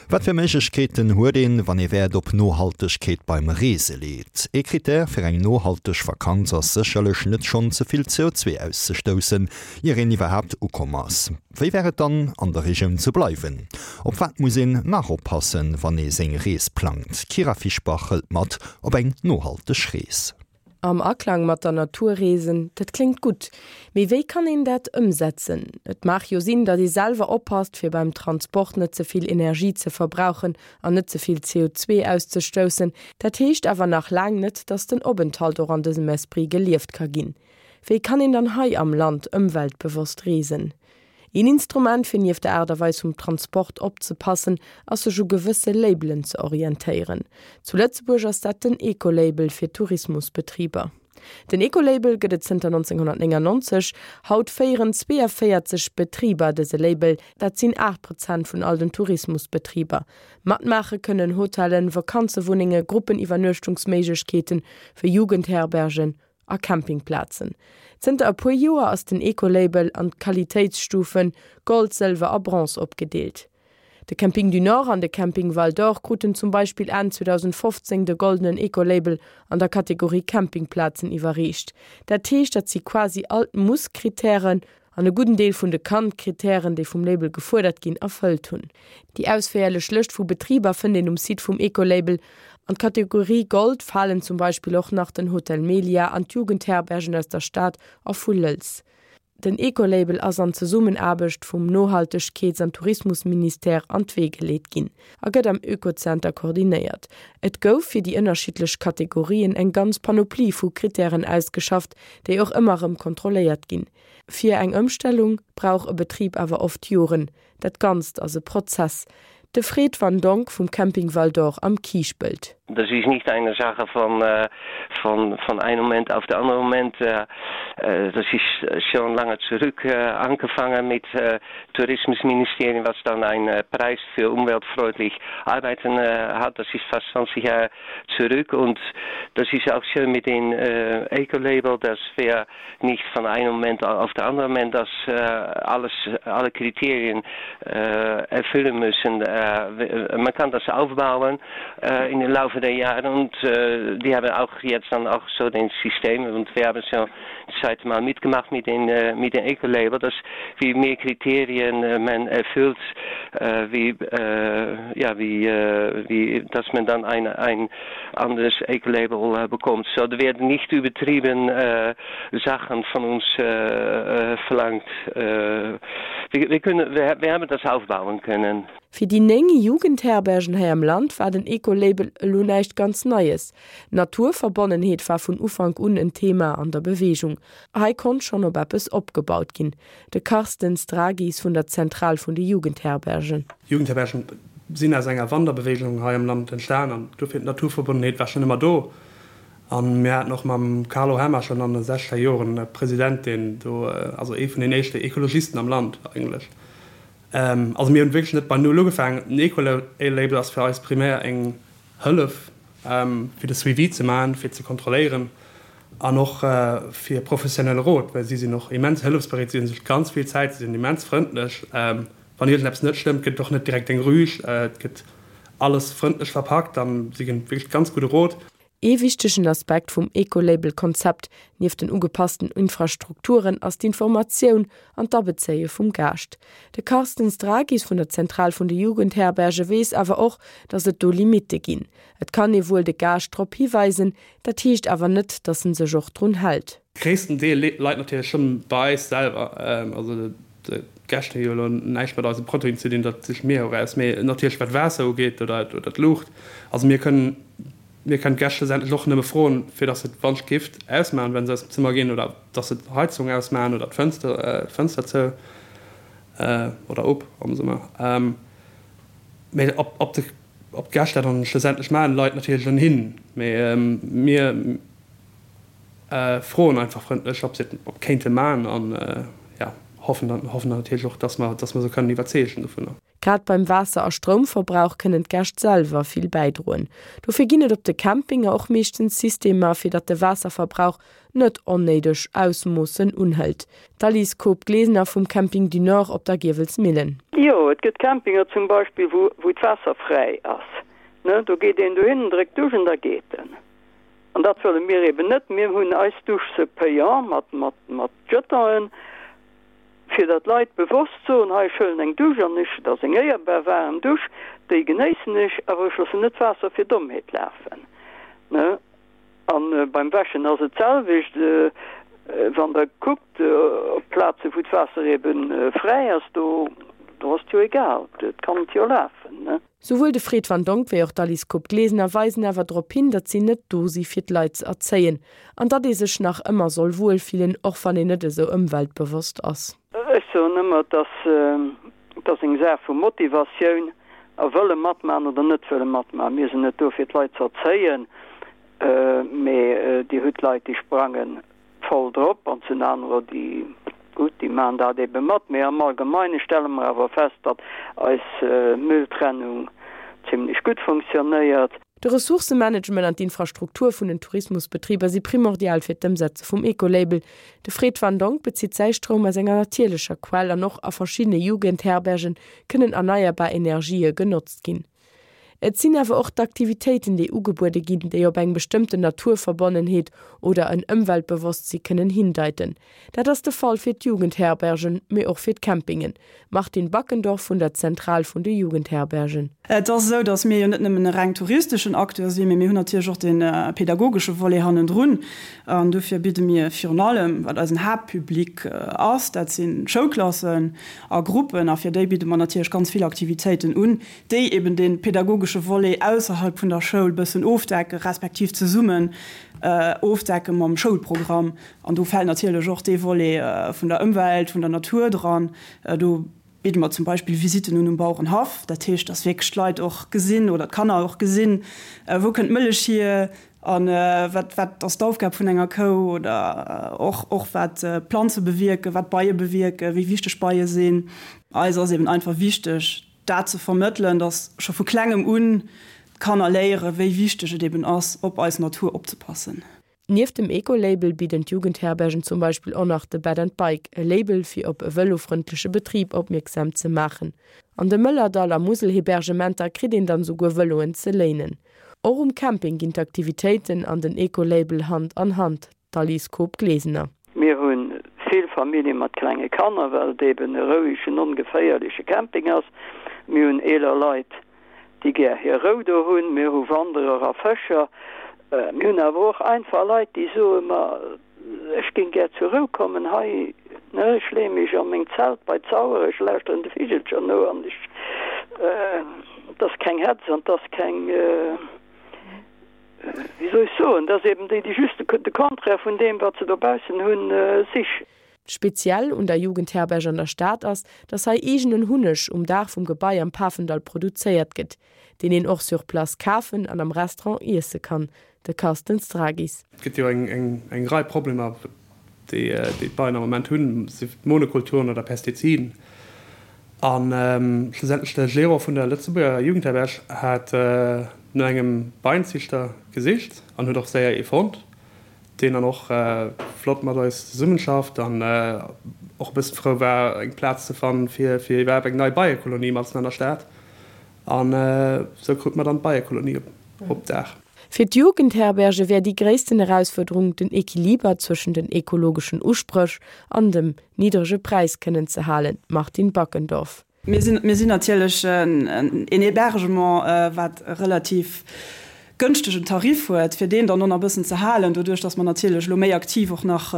Wat fir Méiglechkeeten huet een, wann ee Wäert op Nohaltegkeet beim Reese leet? Ee Critère fir eng nohalteg Vakanz ass sécherlech net schonn ze vill CO2 auszestoussen, ier een iwwerhaapt ukomm ass. Wéi wär et dann, an der Regioun ze bleiwen? Op wat muss een nach oppassen, wann ee seng Rees plangt? D'Kyra Fischbach hëlt mat op eng nohalteg Rees. Am Aklang mat der Natur reesen, dat kléngt gutt. Mee wéi kann een dat ëmsetzen? Et mag jo sinn, datt ee selwer oppasst, fir beim Transport net ze vill Energie ze verbrauchen an net ze vill CO2 auszestoussen. Dat heescht awer nach laang net, datt den Openthalt och an dësem Esprit gelieft ka ginn. Wéi kann een dann hei am Land ëmweltbewosst reesen? Een Instrument, fir nieft der Aart a Weis vum Transport opzepassen, ass sech u gewësse Labelen ze orientéieren. Zu Lëtzebuerg ass dat den Ecolabel fir Tourismusbetriber. Den Ecolabel gëtt et zënter 1999. Haut féieren 42 Betriber dëse Label, dat sinn 8 Prozent vun all den Tourismusbetriber. Matmaache kënnen Hotellen, Vakanzewunnenge, Gruppeniwwernuechtungsméiglechkeeten, wéi Jugendherbergen a Campingplazen. Zënter e puer Joer ass den Ecolabel an d'Qualitéitsstufen Gold, Sëlwer a Bronze opgedeelt. De Camping du Nord an de Camping Val d'Or kruten zum Beispill Enn 2015 de goldenen Ecolabel an der Kategorie Campingplazen iwwerreecht. Dat heescht, datt si quasi all d'Muss-Krittären an e gudden Deel vun de Kann-Krittären, déi vum Label gefuerdert ginn, erfëllt hunn. Déi ausféierlech Lëscht vu Betriber fënnt een um Site vum Ecolabel. An d'Kategorie Gold falen zum Beispill och nach den Hotel Melia an d'Jugendherbergen aus der Stad a vu Lëlz. Den Ecolabel ass an Zesummenaarbecht vum Nohaltegkeets an Tourismusministère an d'Wee geleet ginn a gëtt am Oekozenter koordinéiert. Et gouf fir déi ënnerschiddlech Kategorien eng ganz Panoplie vu Krittären ausgeschafft, déi och ëmmer erëm kontrolléiert ginn. Fir eng Ëmstellung brauch e Betrib awer oft Joren. Dat Ganzt ass e Prozess. De Fred Van Donck vum Camping Val d'Or am Kiischpelt. Das ist nicht eine Sache von, von, von einem Moment auf den anderen Moment. Das ist schon lange zurück angefangen mit Tourismusministerium, was dann einen Preis für umweltfreundlich Arbeiten hat. Das ist fast 20 Jahre zurück und das ist auch schön mit dem Ecolabel, dass wir nicht von einem Moment auf den anderen Moment das äh, alles, alle Kriterien äh, erfüllen müssen. Äh, man kann das aufbauen äh, in den Laufe der Jahre und äh, die haben auch jetzt dann auch so den System und wir haben schon seit mal mitgemacht mit den, äh, mit den Ecolabel, dass wie mehr Kriterien äh, man erfüllt, äh, wie, äh, ja, wie, äh, wie, dass man dann ein, ein anderes Ecolabel äh, bekommt. So, da werden nicht übertrieben äh, Sachen von uns äh, äh, verlangt. Äh, wir, wir, können, wir, wir haben das aufbauen können. Fir déi 9 Jugendherbergen hei am Land war den Ecolabel elo näischt ganz Neies. D'Naturverbonnenheet war vun Ufank un en Thema an der Beweegung. Hei konnt schonn op eppes opgebaut ginn. De Carsten Stragis vun der Zentral vun de Jugendherbergen. Jugendherbergen sinn aus enger Wanderbeweegung hei am Land entstan an dofir d'Naturverbonnenheet war schonn ëmmer do. A mir haten och mam Carlo Hemmer schonn an de sechzeger Joren e President, deen do, also ee vun den éischte Ekologisten am Land eigentlech. Also mir hunn wierklech net bei Null ugefaangen. Den Ecolabel ass fir eis primär eng Hëllef, fir de Suivi ze maachen, fir ze kontrolléieren an och fir professionelle Rot, well si sinn och immens hëllefsbereet, si hunn sech ganz vill Zäit, si sinn immens frëndlech. Wann iergendeppes net stëmmt, gëtt et och net direkt eng Rüg, et gëtt alles frëndlech verpackt an si ginn wierklech ganz gudde Rot. Ee wichtegen Aspekt vum Ecolabel-Konzept, nieft den ugepassten Infrastrukturen, ass d'Informatioun an d'Abezéie vum Gaascht. De Carsten Stragis vun der Zentral vun de Jugendherberge weess awer och, datt et do Limitte ginn. Et kann ee wuel de Gaascht drop hiweisen, dat heescht awer net, datt en sech och drun hält. Gréissten Deel leit natierlech schonn bei eis selwer. Also d'Gäscht hu jo elo näischt mat eise Produiten ze dinn, dat siche mir jo eraus. Mee natierlech wat d'Waasser ugeet oder d'Luucht, also mir kënnen Mir kënnen d'Gäscht schlussendlech och nëmme froen, fir dass se d'Wandgift ausmaachen, wa se aus dem Zëmmer ginn, oder dass se d'Heizung ausmaachen oder d'Fënster, d'Fënster zou oder op am Summer. Mee ob, ob de, ob d'Gäscht dat dann schlussendlech maachen, leit natierlech un hinnen. Mee mir froen einfach frëndlech, ob se et kéinte maachen an, jo, hoffen dann, hoffen dann natierlech och, dass mer, dass mer se kënnen iwwerzeegen dovunner. Grad beim Waasser a Stroumverbrauch kënnen d'Gäscht selwer vill bäidroen. Dofir ginn et op de Campinger och meeschtens Systemer, fir datt de Waasserverbrauch net onnéideg Ausmoossen unhëlt. D'Alice Koob-Glesener vum Camping du Nord op der Giewelsmillen. Jo, et gëtt Campinger zum Beispill, wou, wou d'Waasser fräi ass, ne. Do geet een dohin, dréckt d'Dusch an da geet en. An dat wëlle mir eben net. Mir hunn eis Dusch se payant mat, mat, mat Jetonen, fir datt d'Leit bewosst soen, hei, ech huelen eng Dusch an ech, dat ass eng éierbar waarem Dusch, déi genéissen ech, awer ech loossen net d'Waasser fir Dommheet lafen, ne. A beim Wäschen ass et d'selwecht. Wann Der kuckt op Plaze wou d'Waasser ebe fräi ass, do ass et jo egal, et kann et jo lafen, ne. Souwuel de Fred Van Donck wéi och d'Alice Koob-Glesener weisen awer drop hin, datt si net do si fir d'Leit ze erzéien an datt ee sech nach ëmmer soll wuel fillen, och wann een net esou ëmweltbewosst ass. Ech soen ëmmer, et ass, et ass eng Saach vu Motivatioun a wëlle matmachen oder net wëlle matmachen. Mir sinn net do fir d'Leit ze erzéien, mee Dir hutt Leit déi sprangen voll drop an et sinn anerer, déi, gutt, déi maachen dat ebe mat. Mee am Allgemeine stelle mer awer fest, datt eis Mülltrennung zimlech gutt funktionéiert. De Ressourcemanagement an d'Infrastruktur vun den Tourismusbetriber si primordial fir d'Ëmsetze vum Ecolabel. De Fred Van Donck bezitt säi Stroum aus enger natierlecher Quell an och a verschiddene Jugendherberge kënnen erneierbar Energië genotzt ginn. Et sinn awer och d'Aktivitéiten, déi ugebuede ginn, déi op eng bestëmmten Naturverbonnenheet oder en Ëmweltbewosstsi kënnen hindeiten. Dat ass de Fall fir d'Jugendherbergen, mee och fir d'Campingen. Martine Backendorf vun der Zentral vun de Jugendherbergen. Et ass esou, datt mir jo net nëmmen e reng touristeschen Acteur sinn, mee mir hunn natierlech och de pedagogesche Volet hannendrun. An dofir bidde mir virun allem, wat eisen Haaptpublic ass, dat si Schoulklassen a Gruppen, a fir déi bidde mer natierlech ganz vill Aktivitéiten un, déi eben dee pedagogesche Volet ausserhalb vun der Schoul bëssen ofdecken, respektiv zesummen ofdecke mam Schoulprogramm. An do fält natierlech och dee Volet vun der Ëmwelt, vun der Natur dran. Do bidde mer zum Beispill Visitten un um Bauerenhaff. Dat heescht, dass wierklech d'Leit och gesinn oder d'Kanner och gesinn, wou kënnt d'Mëllech hier a wat, wat ass d'Aufgab vun enger Kou oder och, och wat d'Planze bewierken, wat d'Beie bewierken, wéi wichteg Beie sinn. Eis ass eben einfach wichteg, dat ze vermëttelen, dass scho vu klengem un d'Kanner léieren, wéi wichteg et eben ass, op eis Natur opzepassen. Nieft dem Eco-Label bidden d'Jugendherbergen zum Beispill och nach de Bed and Bike, e Label fir op e vëlofrëndleche Betrib opmierksam ze maachen. An de Mëllerdall a Muselhebergementer kritt een dann esouguer Vëloen ze léinen. Och um Camping ginn d'Aktivitéiten an den Eco-Label Hand an Hand. D'Alice Koob-Glesener. Mir hu vill Famillje mat klenge Kanner, well et eben e rouegen, ongeféierleche Camping ass. Mir hunn eeler Leit, déi gär hir Rou do hunn. Mir hu Wanderer a Fëscher. Mir hunn awer och einfach Leit, déi soen, Ma ech géing gär zur Rou kommen hei, ne, ech leeë mech a meng Zelt bei d'Sauer, ech lauschteren de Vigelcher no an ech, et ass keng Hetz an et ass keng. Wéi soll ech soen, dat ass eben déi, déi just de Contraire vun deem, wat se dobaussen hunn, sichen. Speziell un der Jugendherberg an der Stad ass, dass hei eegenen Hunneg um Daach vum Gebai am Pafendall produzéiert gëtt, deen een och sur place kafen an am Restaurant iesse kann. De Carsten Stragis. Et gëtt jo eng Rei Problemer, déi d'Beien am Moment hunn, sief et Monokulturen oder Pestiziden. A schlussendlech de Gérant vun der Lëtzebuerger Jugendherberg hat no engem Beienziichter gesicht an huet och séier ee fonnt, deen dann och flott mat eis zesummenschafft an och e bëssen frou war, eng Plaz ze fannen, fir iwwerhaapt eng nei Beiekolonie matzen an der Stad. An esou krute mer dann d'Beiekolonie op Daach. Fir d'Jugendherberge wär déi gréissten Erausfuerderung, den Equiliber zwëschen den ekologeschen Uspréch an dem niddrege Präis kënnen ze halen, Martine Backendorf. Mir sinn, mir sinn natierlech en Hébergement, wat e relativ gënschtegen Tarif huet, fir deen dann och nach e bëssen ze halen, doduerch datt mer natierlech elo méi aktiv och nach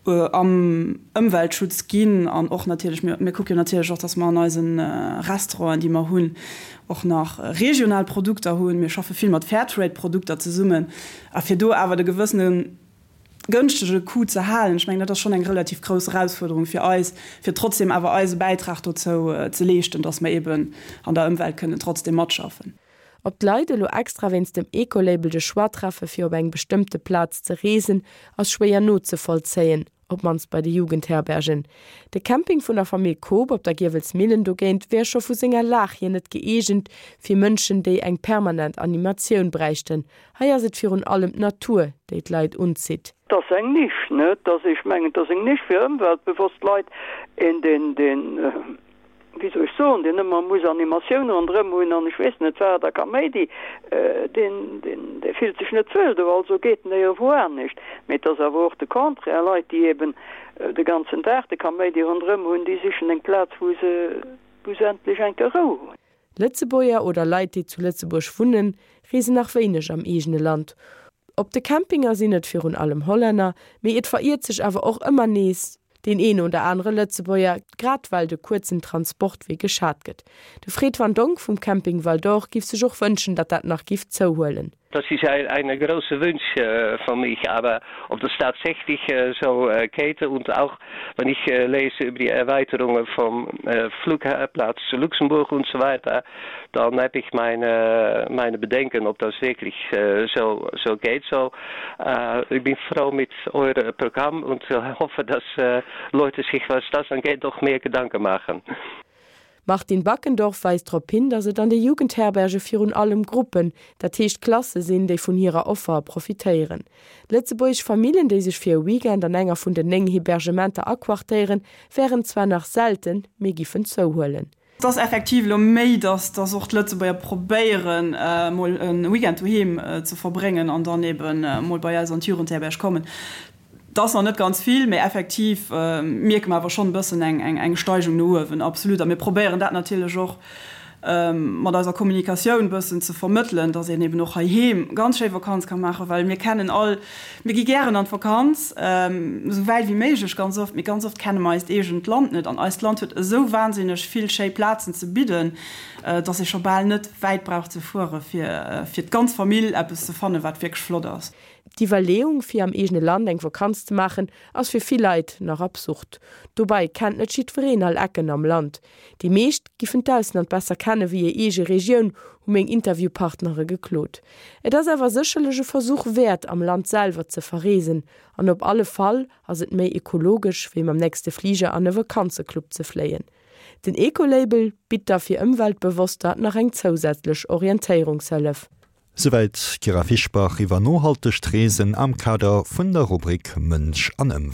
am Ëmweltschutz ginn an och natierlech, mir kucke jo natierlech och, datt mer an eise Restauranten, déi mer hunn, och nach regional Produkter hunn. Mir schaffe vill mat Fairtrade-Produkter zesummen. A fir do awer de gewëssene gënschtege Coût ze halen, ech mengen, dat ass schonn eng relativ grouss Erausfuerderung fir eis, fir trotzdem awer eise Bäitrag dozou ze leeschten, datt mer eeben an der Ëmwelt kënnen trotzdem matschaffen. Ob d'Leit elo extra wéinst dem Ecolabel de Choix treffe fir op eng bestëmmte Plaz ze reesen, ass schwéier nozevollzéien, op d'mannst bei de Jugendherbergen. De Camping vun der Famill Koob op der Giewelsmillen dogéint wär scho vu senger Lag hier net gëeegent fir Mënschen, déi eng permanent Animatioun bräichten. Hei ass et virun allem d'Natur, déi d'Leit unzitt. 't ass eng Nisch, ne? 't ass, ech mengen, 't ass eng Nisch fir ëmweltbewosst Leit, een, deen, deen, wéi soll ech soen? soen, deen ëmmer muss Animatioun ronderëm hunn an ech weess net wat a Kaméidi, deen, deen, dee fillt sech net wuel do, also geet en éierewou anescht. Mee et ass awer och de Contraire, Leit, déi eben de ganzen Dag de Kaméidi ronderëm hunn, déi sichen eng Plaz, wou se, wou se endlech eng Kéier Rou hunn. Lëtzebuerger oder Leit, déi zu Lëtzebuerg wunnen, reesen nach wéineg am eegene Land. Op de Campinger sinn et virun allem Hollänner, mee et veriert sech awer och ëmmer nees deen een oder anere Lëtzebuerger, grad well de kuerzen Transportwee geschat gëtt. De Fred Van Donck vum Camping Val d'Or giff sech och wënschen, datt dat nach giff zouhuelen. Das ist ein, eine große Wunsch äh, von mich, aber ob das tatsächlich äh, so äh, geht und auch wenn ich äh, lese über die Erweiterungen vom äh, Flugplatz zu Luxemburg und so weiter, dann habe ich meine, meine Bedenken, ob das wirklich äh, so, so geht. So, äh, ich bin froh mit eurem Programm und hoffe, dass äh, Leute sich, was das angeht, doch mehr Gedanken machen. D'Martine Backendorf weist drop hin, datt et an de Jugendherberge virun allem Gruppen, dat heescht Klasse sinn, déi vun hirer Offer profitéieren. Lëtzebuergesch Famillen, déi sech fir e Weekend an enger vun den 9 Hebergementer aquartéieren, wären zwar nach selten, mee giffen zouhuelen. Et ass effektiv elo méi, datt datt och d'Lëtzebuerger probéieren, mol e Weekend doheem ze verbréngen an dann eben mol bei eis an d'Jugendherberg kommen. Et ass nach net ganz vill, mee effektiv mierke mer awer schonn e bëssen eng Steigung no uewen, absolut. A mir probéieren dat natierlech och mat eiser Kommunikatioun e bëssen ze vermëttelen, dass een eben och heiheem ganz schéi Vakanz ka maachen, well mir kennen all, mir gi gären an d'Vakanz, esou wäit wéi méiglech ganz oft, mee ganz oft kenne mer eist eegent Land net. An eist Land huet esou wahnsinneg vill schéi Plazen ze bidden, dass ee scho bal net wäit brauch ze fuere fir fir d'ganz Famill eppes ze fannen, wat wierklech flott ass. D'Iwwerleeung, fir am eegene Land eng Vakanz ze maachen, ass fir vill Leit nach absurd. Dobei kennt net jiddwereen all Ecken am Land. Déi meescht giffen d'Ausland besser kenne wéi hir eege Regioun, hu meng Interviewpartnere geklot. Et ass awer sécherlech e Versuch wäert, am Land selwer ze verreesen. An op alle Fall ass et méi ekologesch, wéi mam nächste Fliger an e Vakanzeclub ze fléien. Den Ecolabel bitt da fir Ëmweltbewosster nach eng zousätzlech Orientéierungshëllef. Souwäit d'Kyra Fischbach iwwer nohaltegt Reesen am Kader vun der Rubrik Mënsch an Ëmwelt.